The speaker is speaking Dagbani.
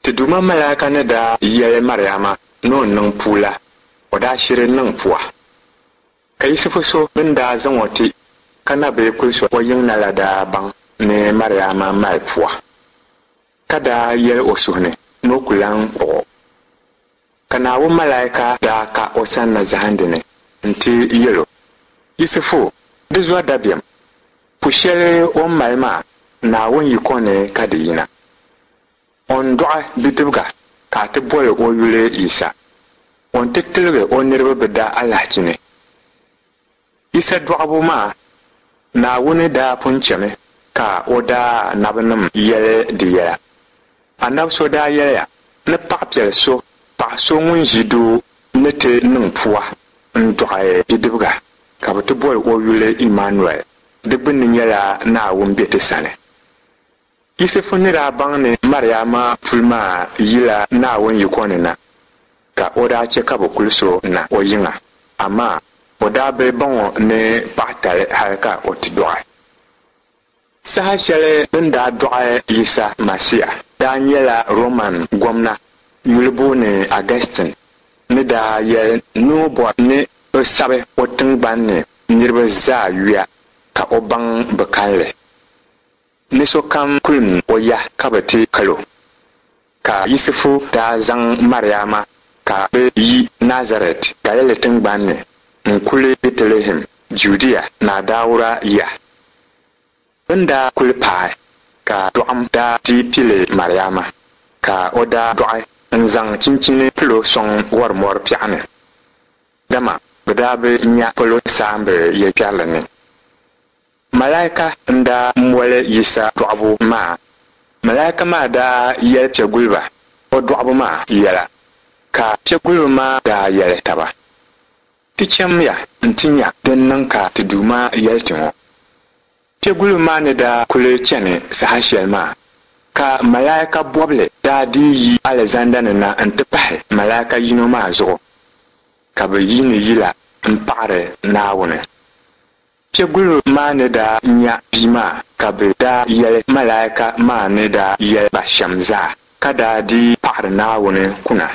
Ti Duuma malaika ni daa yɛli Mariama ni o niŋ pua la, o daa shiri niŋ pua. Ka Yisifu so bɛ ni daa zaŋ o ti ka na bi kulis o yiŋ na la daa baŋ ni Mariama mali pua, ka daa yɛli o suhu ni ni o ku lan kpuɣ o. Ka Naawuni malaika daa ka o sanna zahindi ni nti yɛl o, Yisifu, di zɔri dabiɛm, pu shɛli o ni mali maa, Naawuni yiko ni ka di yina. O ni dɔɣi bidibiga ka a ti boli o yuli Yisa. O ni ti tiligi o niriba bɛ da alahichi ni. Yisa dɔɣibu maa, Naawuni daa pun chɛmi ka o daa anabinim yɛli di yɛla. Anabi so daa yɛliya ni paɣipiɛl so, paɣ so ŋun ʒi doo ni ti niŋ pua n-dɔɣi bidibiga, ka bɛ ti boli o yuli Imanuɛl, di gbunni nyɛla Naawuni be ti sani. Yisifu ni daa baŋ ni Mariama puli maa yila Naawuni yiko ni na, ka o daa chɛ ka bɛ kulis o na o yiŋa, amaa o daa bi baŋ o ni paɣitali hal ka o ti dɔɣi. Saha shɛli bɛ ni daa dɔɣi Yisa Masia daa nyɛla Roman gomna yuli booni Agɛstin ni daa yɛli ni o bɔri ni bɛ sabi o tiŋgbani ni niriba zaa yuya ka o baŋ bɛ kalinli. Ni sokam kulim o ya ka bɛ ti kal o. Ka Yisifu daa zaŋ Mariama ka bɛ yi Nazarɛt Galili tiŋgban ni n-kuli Bɛtilihɛm, Judia Naa Dauda ya. Bɛ ni daa kuli paai, ka dɔɣim daa ti pili Mariama, ka o daa dɔɣi n-zaŋ chinchini pil o sɔŋ wɔrimɔri piɛɣu ni, dama bɛ daa bi nya polo saamba yɛlikpɛrili ni. Malaika n-daa moli Yisa dɔɣibu maa. Malaika maa daa yɛli piɛguliba o dɔɣibu maa yɛla, ka piɛguliba maa daa yɛli taba, Ti chamiya nti nya din niŋ ka ti Duuma yɛli ti ŋɔ. Piɛguliba maa ni daa kuli chani saha shɛli maa, ka malaika bɔbili daa dii yi alizanda ni na nti pahi malaika yino maa zuɣu, ka bɛ yiini yila m-paɣiri Naawuni. Piɛguliba maa ni daa nya bia maa ka bɛ daa yɛli malaika maa ni daa yɛli ba shɛm zaa, ka daa dii paɣiri Naawuni kuna.